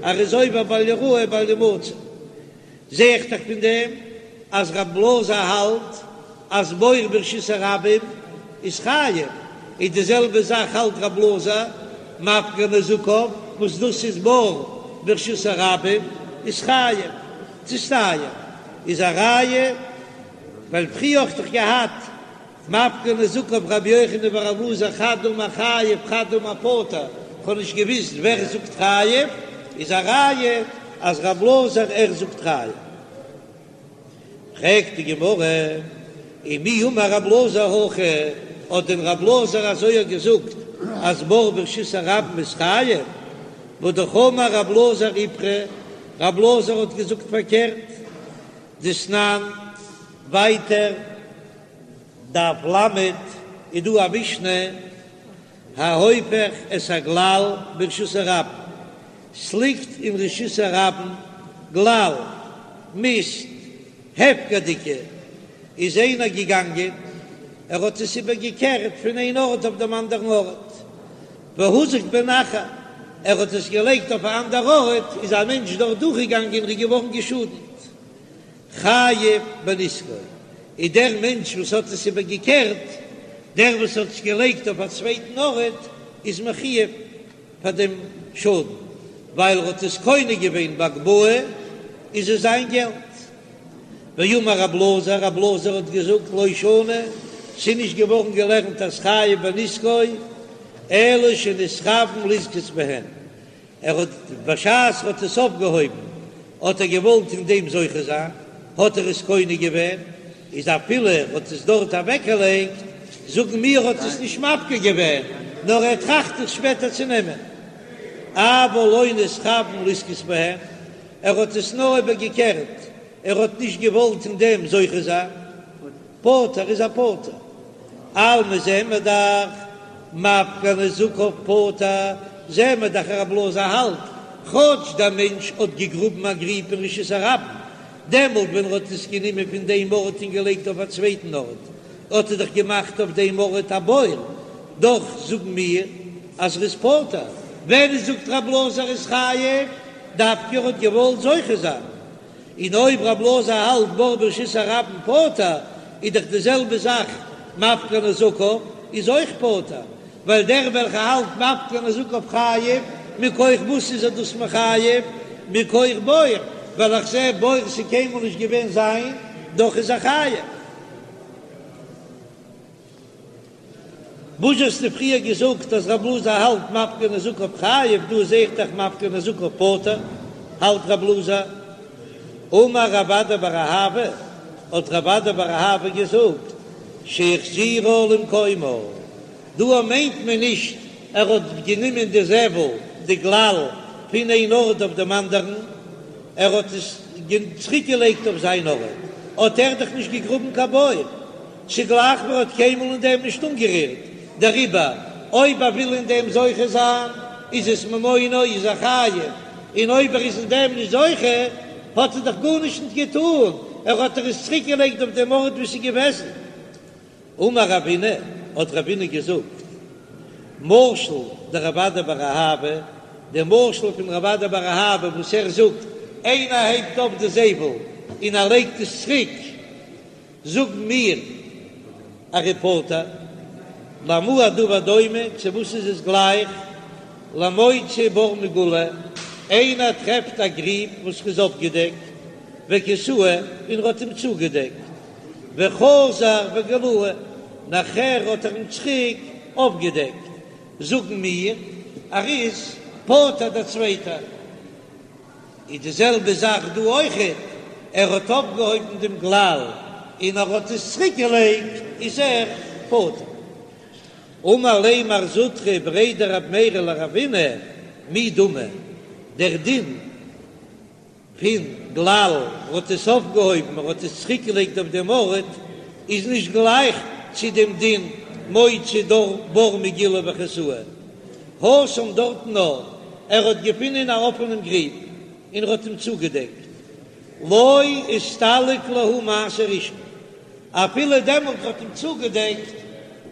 [SPEAKER 1] ער איז עובר בל יראה בל ימצא. זע איך דאך פון דעם אז רב אלעזר האלט אז בור ברשות הרבים איז חייב, איז די זעלבע זאך האלט רב אלעזר מפקיר נזקיו וואס דאס איז בור ברשות הרבים איז חייב, תסתיים איז א ראיה ווייל פריער האט דאך געהאט מפקיר נזקיו רבי יוחנן ורב אלעזר חד אמר חייב חד אמר פטור, כ'האב נישט געוויסט ווער זאגט חייב, איז א ראיה אז רב אלעזר ער זאגט חייב. פרעגט די גמרא, ומי אמר רב אלעזר הכי, האט דען רב אלעזר אזוי געזאגט אז בור ברשות הרבים איז חייב? והא אמר רב אלעזר איפכא, רב אלעזר האט געזאגט פארקערט, דתנן, ווייטער דף ל' איז דא א משנה, ההופך את הגלל ברשות הרבים, ס'ליגט אין רשות הרבים גלל, מיסט, הפקר'דיגע, איז איינער געגאנגען, ער האט עס איבער געקערט פון איין ארט אויף דעם אנדערן ארט, והוזק בהן אחר, ער האט עס געלייגט אויף א אנדער ארט, איז א מענטש דארט דורכגעגאנגען און איז געווארן געשאדנט. חייב בנזקו, איז דער מענטש וואס האט עס איבער געקערט, דער וואס האט עס געלייגט אויף א צווייטן ארט, איז מחויב פאר דעם שאדן, ווייל ער האט עס קונה געווען בהגבהה, איז עס זיין געלט. ואמר רב אלעזר, רב אלעזר האט געזאגט, לא שנו, ס'איז נישט געווארן געלערנט אז חייב בנזקו, אלא שנתכוון לזכות בהן, ער האט בשעת ער האט עס אויפגעהויבן האט ער געוואלט אין דעם זוכה זיין, האט ער עס קונה געווען, איז אפילו ער האט עס דארט אוועקגעלייגט, זאגן מיר האט עס נישט מפקיר געווען, נאר ער טראכט עס שפעטער צו נעמען. אבל לא נתכוון לזכות בהן, ער האט עס נאר איבערגעקערט, ער האט נישט געוואלט אין דעם זוכה זיין. פטור איז ער פטור. אלמא זעען מיר דאך מפקיר נזקיו פטור, זעען מיר דאך רב אלעזר האלט, כאטש דער מענטש האט געגראבן א גריב אין רשות הרבים, דעמאלט ווען ער האט עס גענומען פון דעם ארט און געלייגט אויף א צווייטן ארט, האט ער דאך געמאכט אויף דעם ארט א בור, דאך זאגן מיר אז ער איז פטור. ווען זאגט רב אלעזר איז חייב, דווקא ער האט געוואלט זוכה זיין. און אויב רב אלעזר האלט בור ברשות הרבים פטור, איז דאך די זעלבע זאך מפקיר נזקיו איז אויך פטור, ווייל דער וועלכער האלט מפקיר נזקיו חייב, מכח וואס איז ער דאס מחייב? מכח בור, ווייל איך זע בור ס'איז קיינמאל נישט געווען זיין, דאך איז ער חייב. וואס האסטו פריער געזאגט אז רב אלעזר האלט מפקיר נזקיו חייב, דא זעה איך דאך מפקיר נזקיו פטור, האלט רב אלעזר. אמר רב אדא בר אהבה, האט רב אדא בר אהבה געזאגט, שהחזירה למקומה, דא מיינט מען נישט ער האט גענומען די זבל, די גלל, פון איין ארט אויף דעם אנדערן, ער האט עס צוריק געלייגט אויף זיין ארט, האט ער דאך נישט געגראבן קיין בור. ס'איז גלייך ווי ער האט קיינמאל אין דעם נישט אנגערירט, דעריבער אויב ער וויל אין דעם זוכה זיין איז עס ממונו איז ער חייב, און אויב ער איז אין דעם נישט זוכה האט ער דאך גארנישט נישט געטאן, ער האט דאך עס צוריק געלייגט אויף דעם ארט וואו ס'איז געוועזן. אמר רבינא, האט רבינא געזאגט. משל דרב אדא בר אהבה, דער משל פון רב אדא בר אהבה וואס ער זאגט, איינער הייבט אויף די זבל און ער לייגט עס צוריק, זאגן מיר ער איז פטור, למה הדבר דומה, צו וואס איז עס גלייך, למוצא בור מגולה, איינער טרעפט א גריב וואס איז אפגעדעקט, וכסהו, און ער האט אים צוגעדעקט, וחזר וגילהו, נאכער האט ער אים צוריק אויפגעדעקט, זאגן מיר, ער איז פטור דער צווייטער. איז די זעלבע זאך דא אויכעט, ער האט אויפגעהויבן דעם גלל און ער האט עס צוריק געלייגט, איז ער פטור. אמר ליה מר זוטרא בריה דרב מרי לרבינא, מי דמי, דער דין פון גלל האט עס אויפגעהויבן ער האט עס צוריק געלייגט אויף דעם ארט, איז נישט גלייך צו דעם דין מוצא דור בור מגולה וכסהו. התם דארטן נאר ער האט געפונען א אפענעם גריב און ער האט אים צוגעדעקט, לא אסתלק להו מעשה ראשון, אפילו דעמאלט ער האט אים צוגעדעקט,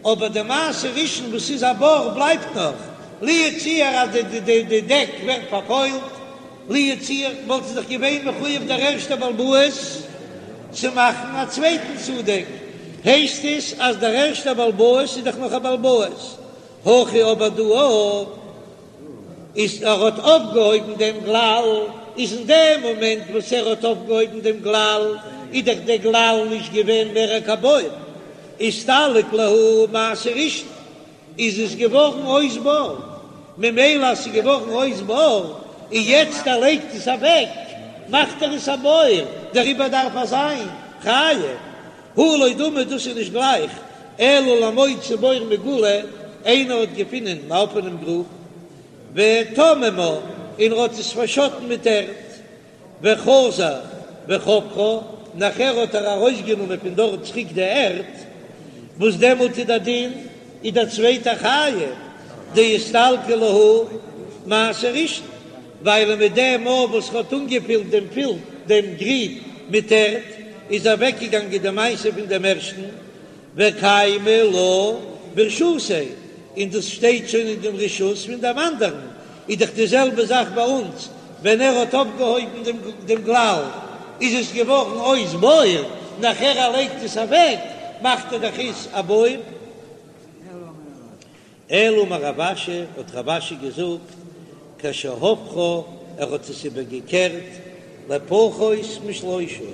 [SPEAKER 1] אבער די מעשה ראשון וואס איז א בור בלייבט נאך, לו יצוייר אז די דעק ווערט פארפוילט, לו יצוייר וואלט ער דאך געווען מחויב דער ערשטער בעל הבית צו מאכן א צווייטן צודעק, הייסט עס אז דער ערשטער בעל הבית איז דאך נאך א בעל הבית, הכא אבער דא איז ער האט אויפגעהויבן דעם גלל, איז אין דעם מאמענט וואס ער האט אויפגעהויבן דעם גלל איז דאך דער גלל נישט געווען מער קיין בור, אסתלק להו מעשה ראשון, איז עס געווארן אויס בור, ממילא אז ס'איז געווארן אויס בור און יעצט ער לייגט עס אוועק מאכט ער עס א בור, דעריבער דארף ער זיין חייב. הא לא דמי דאס איז נישט גלייך, אלא למוצא בור מגולה, איינער האט געפינען אן אפענעם גרוב, וטממה, און ער האט עס פארשאטן מיט ערד, וחזר וחפרה, נאכער האט ער ארויסגענומען פון דארט צוריק די ערד, וואס דעמאלט איז דער דין איז דער צווייטער חייב, דאסתלקא להו מעשה ראשון. ווייל מיט דעם מאל וואס ר'האט אנגעפילט דעם פילט דעם גריב מיט ערד, איז אוועקגעגאנגען די מעשה פון דעם ערשטן, וקיימא לה ברשותיה, און דאס שטייט שוין אין דעם רשות פון דעם אנדערן, איז דאך די זעלבע זאך ביי אונז, ווען ער האט אויפגעהויבן דעם דעם גלל, איז עס געווארן אויס בור, נאכער ער לייגט עס אוועק, מאכט ער דאך עס א בור. אלא אמר רב אשי, האט רב אשי געזאגט, כשהפכה, ער האט עס איבערגעקערט לפחות משלושה.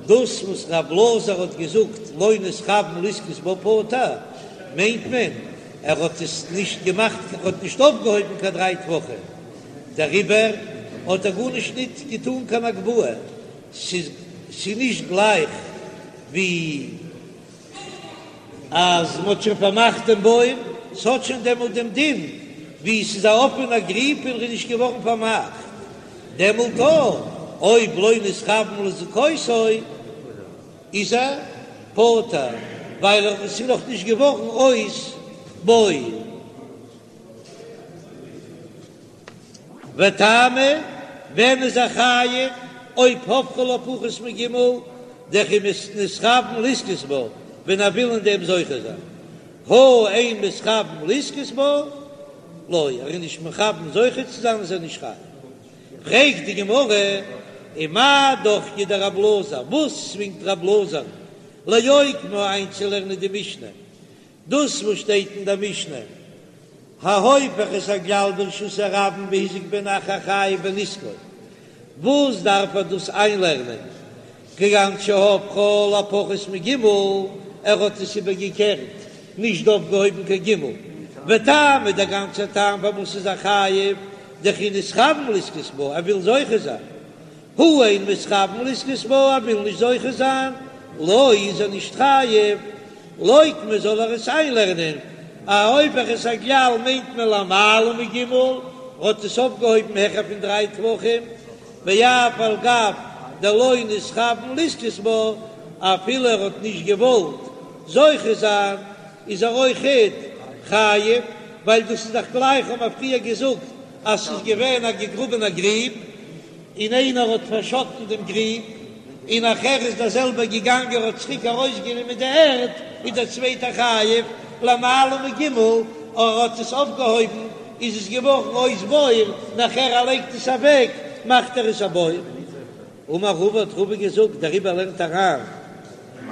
[SPEAKER 1] דאס וואס רב אלעזר האט געזאגט לא נתכוון לזכות בה פטור, מיינט מען ער האט עס נישט געמאכט, ער האט נישט אויפגעהויבן קיין דריי טפחים, דעריבער האט ער גארנישט ניט געטאן קיין הגבהה, ס'איז נישט גלייך ווי. אז מ'האט שוין פארמאכט דעם בור, ס'האט שוין דעמאלט דעם דין ווי ס'איז א אפענע גריב און ר'איז נישט געווארן פארמאכט, דעמאלט אויב לא נתכוון לזכותו איז ער פטור, ווייל עס איז נאך נישט געווארן אויס בור. וטעמא, ווען איז ער חייב אויב הפכה לפחות מג' דכי נתכוון לזכות בה, ווען ער וויל אין דעם זוכה זיין, הא אין מתכוון לזכות בה, לא, ער איז נישט מכוון זוכה צו זיין איז ער נישט חייב. פרעגט די גמרא, ומאי דוחקיה דרב אלעזר, וואס צווינגט רב אלעזר לאוקמה איינצולערנען די משנה, דאס וואס שטייט אין דער משנה, ההופך את הגלל ברשות הרבים והזיק בהן אחר חייב בנזקו, וואס דארף ער דאס איינלערנען, כגון שהפכה לפחות מג', ער האט עס איבערגעקערט, נישט אויפגעהויבן קיין ג', וטעמא דער גאנצער טעם פארוואס איז ער חייב, דכי נתכוון לזכות בה, ער וויל זוכה זיין, הא אין מתכוון לזכות בה, ער וויל נישט זוכה זיין, לא איז ער נישט חייב, לוקמה זאל ער עס איינלערנען, ההופך את הגלל מיינט מען למעלה מג', האט עס אויפגעהויבן העכער פון דריי טפחים, ואף על גב דלא נתכוון לזכות בה, אפילו ער האט נישט געוואלט זוכה זיין, איז ער אויכעט חייב, ווייל דאס איז דאך גלייך האבן מיר פריער געזאגט אז ס'איז געווען א געגראבענע גריב, און איינער האט פארשאטן דעם גריב, און נאכער איז דער זעלבער געגאנגען האט צוריק ארויסגענומען די ערד, איז דער צווייטער חייב. למעלה מג', ער האט עס אויפגעהויבן איז עס געווארן אויס בור, נאכער ער לייגט עס אוועק מאכט ער עס א בור. אמר רבא האט רבא געזאגט דעריבער לערנט אריין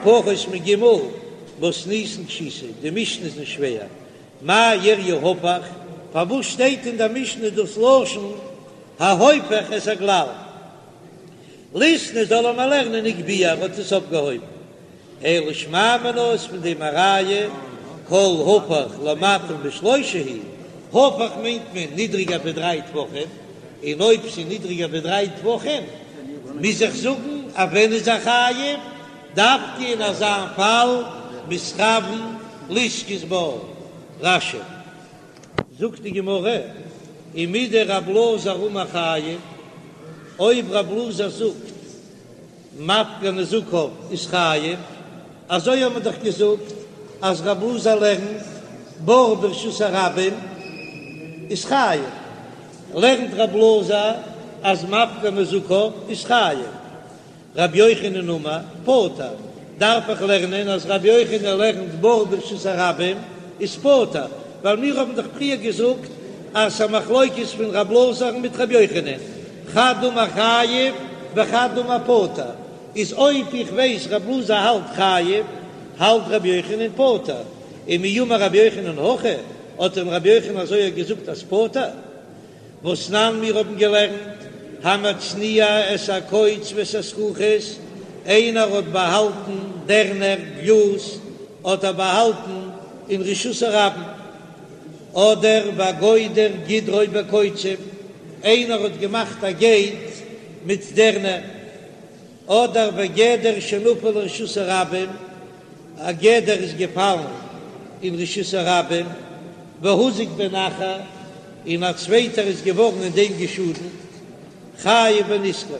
[SPEAKER 1] פחות מג' מתניתין קשיתא, די משנה איז נישט שווער, מאי איריא הפך, פארוואס שטייט אין דער משנה דאס לשון ההופך את הגלל? ליתני זאל ער מיר לערנען הגביה ער האט עס אויפגעהויבן, אלא שמע מינה איז פון דעם א ראיה כל הפך למטה משלושה הוא, הפך מיינט מען נידריגער ווי דריי טפחים, און אויב ס'איז נידריגער ווי דריי טפחים מוז איך זאגן אז ווען איז ער חייב, דווקא אין אזא פאל מתכוין לזכות בה. רש"י. זאגט די גמרא, ומדרב אלעזר אמר חייב, אויב רב אלעזר זאגט מפקיר נזקיו איז חייב, אזוי האט מען דאך געזאגט אז רב אלעזר לערנט בור ברשות הרבים איז חייב, לערנט רב אלעזר אז מפקיר נזקיו איז חייב. רבי יוחנן אמר, פטור, דארף איך לערנען אז רבי יוחנן לערנט בור ברשות הרבים איז פטור, ווייל מיר האבן דאך פריער געזאגט אז ס'א מחלוקת פון רב אלעזר'ן מיט רבי יוחנן, חד אמר חייב וחד אמר פטור, איז אויב איך ווייס רב אלעזר האלט חייב, האלט רבי יוחנן פטור, ומי אמר רבי יוחנן הכי, האט דען רבי יוחנן אזוי געזאגט אז פטור? והתנן מיר האבן געלערנט, המצניע את הקוץ ואת הזכוכית, איינער האט באהאלטן דערנער גלאז האט ער באהאלטן אין רשות הרבים, אדער והגודר גדרו בקוצים, איינער האט געמאכט א געיט מיט דערנער, אדער וגדר שנפל לרשות הרבים, א גדר איז געפאלן אין רשות הרבים, והוזק בהן אחר, און א צווייטער איז געווארן אין דעם געשאדנט, חייב בנזקו,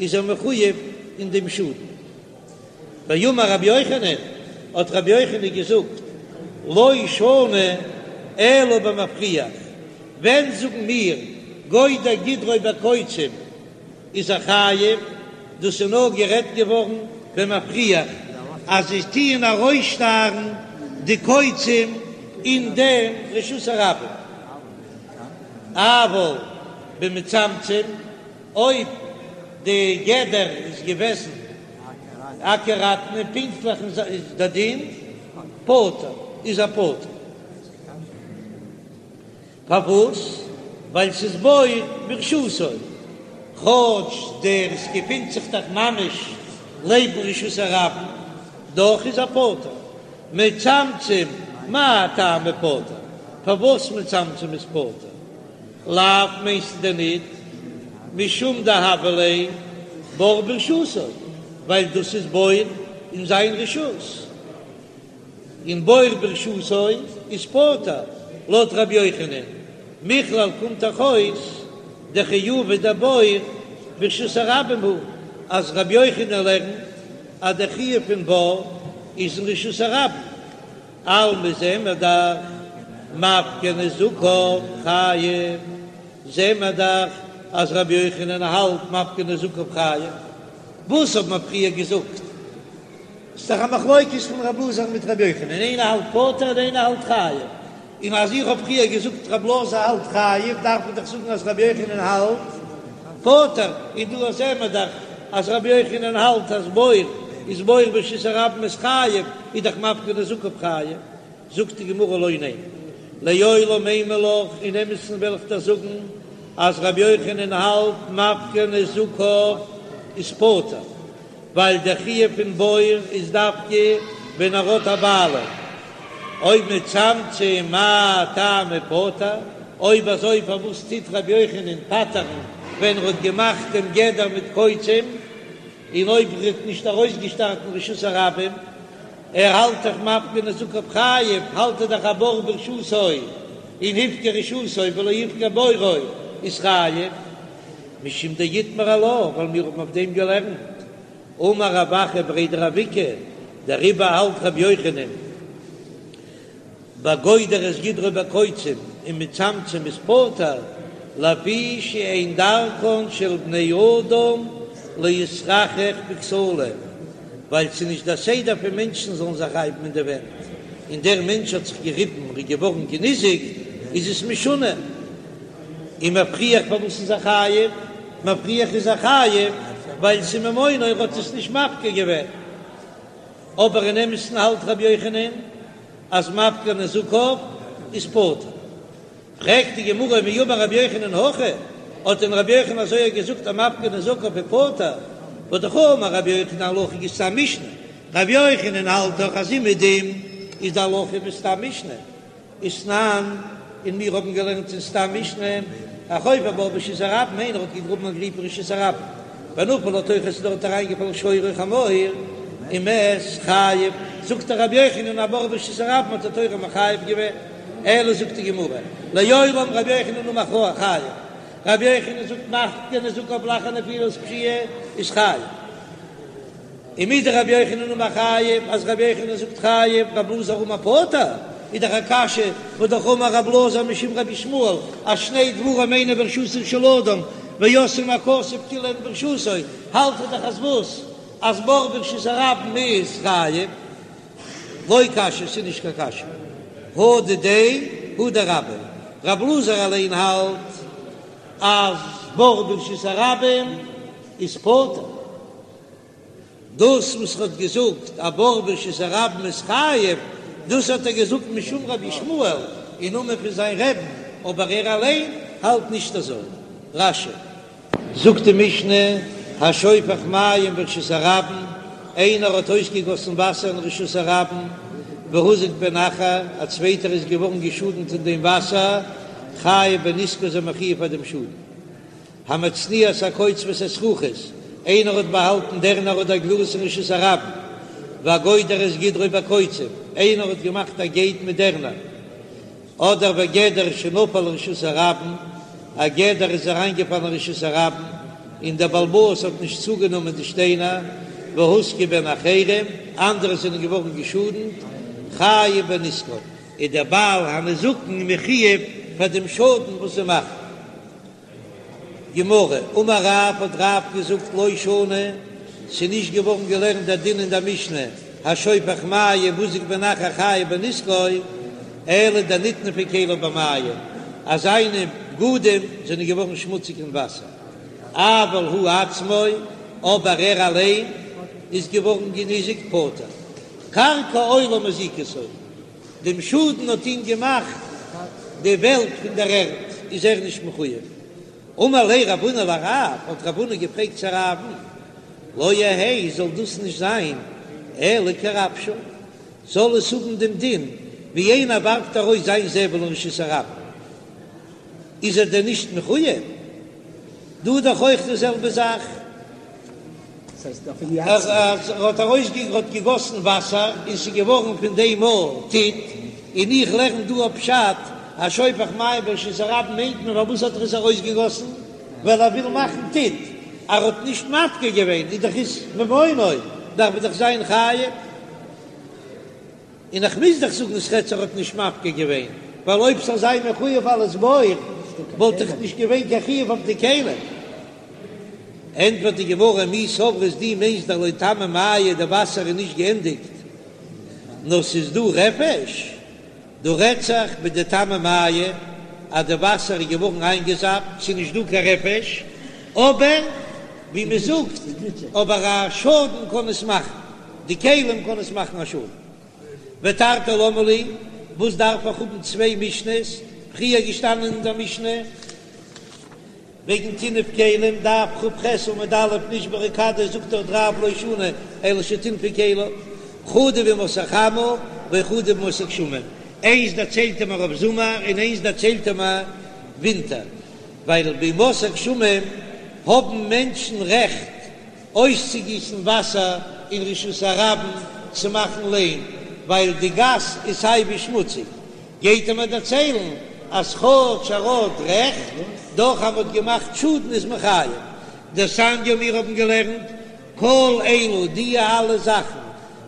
[SPEAKER 1] איז ער מחויב אין דעם שאדן. ואמר רבי יוחנן, האט רבי יוחנן געזאגט, לא שנו אלא במפריח, ווען זאגן מיר גודר גדרו בקוצים, איז ער חייב, דאס איז נאר גערעדט געווארן במפריח אז זיי טוען ארויסשטארן די קוצים אין דעם רשות הרבים, אבל במצמצם, אויב די גדר איז געוועזן אקוראטן און פונקטליך איז די דין פטור, איז ער פטור. פארוואס? ווייל ס'איז בור ברשותו, כאטש דער עס געפינט זיך דאך ממש לעבן רשות הרבים, דאך איז ער פטור. מצמצם, מאי טעמא פטור? פארוואס מצמצם איז פטור? לאו מיינסטו דען ניט משום דהוה ליה בור ברשותו, ווייל דאס איז בור אין זיין רשות. און בור ברשותו איז פטור, לויט רבי יוחנן, מכלל קומט דאך אויס דחיובא דבור ברשות הרבים הוא, אז רבי יוחנן לערנט אז דער חיוב פון בור איז אין רשות הרבים, אלמא זעען מיר דאך מפקיר נזקיו חייב, זעען מיר דאך אז רבי יוחנן האלט מפקיר נזקיו חייב, וואס האט מען פריער געזאגט? ס'איז דאך א מחלוקת פון רב אלעזר מיט רבי יוחנן, איינער האלט פטור און איינער האלט חייב, און אז איך האב פריער געזאגט רב אלעזר האלט חייב, דארף מען דאך זאגן אז רבי יוחנן האלט פטור, און דא זעען מיר דאך אז רבי יוחנן האלט אז בור איז בור ברשות הרבים איז חייב, איז דאך מפקיר נזקיו חייב. זאגט די גמרא לא, ניין, לעולם אימא לך, אין אמת'ן וועל איך דיר זאגן אז רבי יוחנן האלט מפקיר נזקיו איז פטור, ווייל דער חיוב פון בור איז דווקא ווען ער האט א בעלים, אויב מצמצם מאי טעמא פטור, אויב אזוי פארוואס טוט רבי יוחנן פטר'ן ווען ער האט געמאכט דעם גדר מיט קוצים, און אויב ער האט נישט ארויסגעשטארט אין רשות הרבים, ער האלט דאך מפקיר נזקיו חייב, האלט ער דאך א בור ברשותו און הפקיר רשותו ולא הפקיר בורו איז חייב. משום דאיתמר עלה, ווייל מיר האבן אויף דעם געלערנט, אמר רב אחא בריה דרב איקא, דעריבער האלט רבי יוחנן בגודר את גדרו בקוצים און מצמצם איז פטור, לפי שאין דרכן של בני אדם להתחכך בכתלים, ווייל ס'איז נישט דער סדר פון מענטשן זאלן זיך רייבן אין די ווענט. און דער מענטש האט זיך געריבן און איז געווארן געניזיקט, איז עס משונה. און מפריח פארוואס איז ער חייב? מפריח איז ער חייב ווייל ס'איז ממונו ער האט עס נישט מפקיר געווען. אבער אין אמת'ן האלט רבי יוחנן אז מפקיר נזקיו איז פטור. פרעגט די גמרא מי אמר רבי יוחנן הכי, האט דען רבי יוחנן אזוי געזאגט אז מפקיר נזקיו איז פטור? והא דאמר רבי יוחנן הלכה כסתם משנה, רבי יוחנן האלט דאך אז אומעדום איז די הלכה ווי סתם משנה, ותנן, און מיר האבן געלערנט אין סתם משנה, החופר בור ברשות הרבים, איינער האט געגראבן א גריב אין רשות הרבים, ונפל לתוכו ס'איז דארט אריינגעפאלן שור או חמור, ומת חייב, זאגט רבי יוחנן א בור ברשות הרבים האט די תורה מחייב געווען, אלא זאגט די גמרא, לעולם רבי יוחנן אמר חייב, רבי יוחנן זאגט מפקיר נזקיו לאחר נפילת פשיעה איז חייב. ומדרבי יוחנן אמר חייב, אז רבי יוחנן זאגט חייב, רבי אלעזר אמר פטור, איז דאך א קשיא, והא דאך אמר רבי אלעזר משום רבי ישמעאל, אז שני דברים אינן ברשותו של אדם, ועשאן הכתוב כאילו הן ברשותו, האלט ער דאך אז וואס? אז בור ברשות הרבים איז חייב? לא קשיא, ס'איז נישט קיין קשיא. הא דידיה הא דרביה, רבי אלעזר אליין האלט אז בור ברשות הרבים איז פטור. דאס וואס ער האט געזאגט א בור ברשות הרבים איז חייב, דאס האט ער געזאגט משום רבי ישמעאל, אין נאמען פון זיין רעבן, אבער ער אליין האלט נישט אזוי. רש"י. זאגט די משנה, השופך מים ברשות הרבים, איינער האט אויסגעגאסן וואסער אין רשות הרבים, והוזק בהן אחר, א צווייטער איז געווארן געשאדנט אין דעם וואסער, חייב בנזקו איז ער מחויב פאר דעם שאדן. המצניע את הקוץ ואת הזכוכית, איינער האט באהאלטן דערנער אדער גלאז אין רשות הרבים, והגודר את גדרו בקוצים, איינער האט געמאכט א געיט מיט דערנער, אדער וגדר שנפל לרשות הרבים, א גדר איז אריינגעפאלן אין רשות הרבים, און דער בעל הבית האט נישט צוגענומען די שטיינער, והוזקו בהן אחרים, אנדערע זענען געווארן געשאדנט, חייב בנזקן, איז דער בעל הנזקין מחויב פאר דעם שאדן וואס זיי מאכן. גמרא, אמר רב, האט רב געזאגט לא שנו, ס'איז נישט געווארן געלערנט דער דין אין דער משנה, השופך מים והוזק בהן אחר חייב בנזקו, אלא דנטנפו כליו במים, אז זיינע בגדים זענען געווארן שמוציג אין וואסער, אבל הוא עצמו, אבער ער אליין איז געווארן געניזיקט פטור, קרקע עולם הזיקתו. דעם שאדן האט אים געמאכט די וועלט פון דער ערד, איז ער נישט מחויב. אמר ליה רב הונא לרב, האט רב הונא געפרעגט צו רב'ן, לא יהא זאל דאס נישט זיין אלא כרפשו, זאל עס האבן דעם דין ווי איינער ווארפט ארויס זיין זבל אין רשות הרבים, איז ער דען נישט מחויב? דא איז דאך אויך די זעלבע זאך. ער האט ארויסגע האט געגאסן וואסער און ס'איז געווארן פון דעם א טיט, און איך לערן דא א פשט אז שופך מים ברשות הרבים מיינט מען פארוואס האט ער עס ארויסגעגאסן ווייל ער וויל מאכן טיט, ער האט נישט מפקיר געווען איז דאך איז ממונו דארף ער דאך זיין חייב. און איך מוז דאך זאגן ס'רעדט זיך ער האט נישט מפקיר געווען, ווייל אויב ס'זאל זיין מחויב אלס בור וואלט דאך נישט געווען קיין חיוב אויף די כלים. ענטפערט די גמרא, מי סברת דו מיינסט דלא תמו מיא די וואסער איז נישט געענדיגט נאר ס'איז דא רפש, דא רעדט זיך בדתמו מיא אז די וואסער איז געווארן איינגעזאפט ס'איז נישט דא קיין רפש, אבער ווי מ'זאגט אבער א שאדן קען עס מאכן. די כלים קען עס מאכן א שאדן. ותרתי למה לי, וואס דארף איך האבן צוויי משנה'ס, פריער געשטאנען אין דער משנה וועגן טינוף כלים, דף כ"ח עמוד א', נשברה כדו, זאגט דארט רב לא שנו אלא שטינפו כליו, חדא בימות החמה וחדא בימות הגשמים, איינס דערציילט ער מיר אויף זומער און איינס דערציילט ער מיר ווינטער, ווייל בימות הגשמים האבן מענטשן רעכט אויסצוגיסן וואסער אין רשות הרבים צו מאכן ליים, ווייל די גאס איז סייווי שמוציג, גייט ער מיר דערציילן אז כאטש ער האט רעכט, דאך אז מ'האט געמאכט שאדן איז מען חייב. דתניא מיר האבן געלערנט כל אלו די אלע זאכן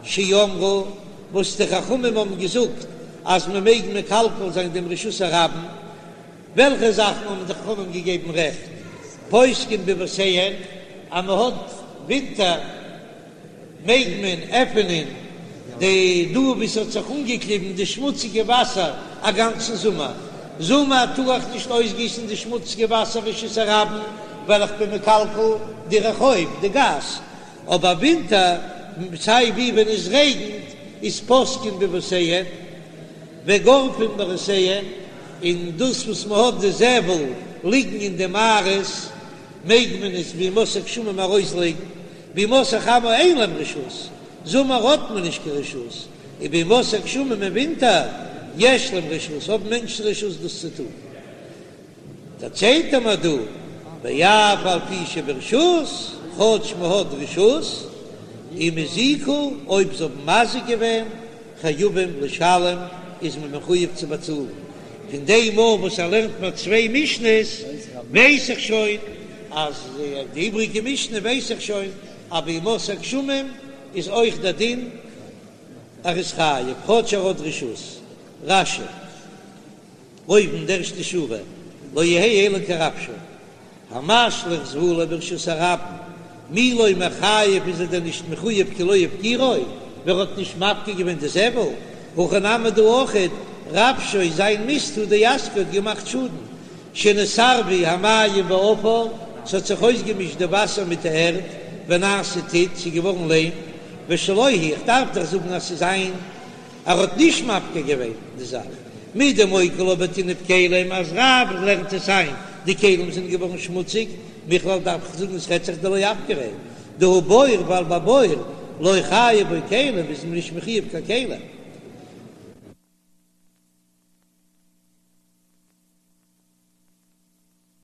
[SPEAKER 1] שאמרו וואס די חכמים האבן געזאגט אז מ'מעג מקלקל זיין דעם רשות הרבים, וועלכע זאכן האבן די חכמים געגעבן רעכט? פותקין ביבותיהן, אז מען האט ווינטער מעג מען עפענען. די דא וואו ס'האט זיך אנגעקליבן די שמוציגע וואסער א גאנצן זומער, זומער טאר איך נישט אויסגיסן די שמוציגע וואסער רשות הרבים ווייל איך בין מקלקל די רחוב, די גאס, אבער ווינטער סיי ווי ווען עס רעגנט איז פותקין ביבותיהן וגורפין מערותיהן, און דאס וואס מען האט די זבל ליגן אין די מערות מעג מען עס בימות הגשמים ארויסלייגן, בימות החמה אין להם רשות, זומער האט מען נישט קיין רשות, און בימות הגשמים אין ווינטער יש להם רשות, האבן מענטשן רשות דאס צו טון. דערציילט ער מיר דא, ואף על פי שברשות, כאטש מען האט רשות, אם הזיקו, אויב זיי האבן מזיק געווען, חייבים לשלם, איז מען מחויב צו באצאלן. פון דעם מאל וואס ער לערנט מיר צוויי משנה'ס, ווייס איך שוין אז די איבריגע משנה ווייס איך שוין אז בימות הגשמים איז אויך דער דין ער איז חייב כאטש ער האט רשות. רש"י, אויבן די ערשטע שורה, לא יהא אלא כרבשו, המשליך זבלו ברשות הרבים, מי לא מיחייב איז ער דען נישט מחויב כי לא הפקירו, ווער האט נישט מפקיר געווען די זבל, הכא נמי דא אויכעט, רבשו זיין מיסט הוא דאזקיה האט געמאכט שאדן, שנתערבו המים והעפר, ס'האט זיך אויסגעמישט די וואסער מיט די ערד, ונעשה טיט, ס'איז געווארן ליים, ושלו הוא, איך דארף דאך זאגן אז ס'איז זיין, ער האט נישט מפקיר געווען די זאך, מדמוקי לה בטינוף כלים, אז רב לערנט עס איין, די כלים זענען געווארן שמוציג, מכלל דארף איך זאגן עס רעדט זיך דלא אפקריה, דהא בור ווייל ביי בור לא חייב בו כלים איז מען נישט מחויב קיין כלים.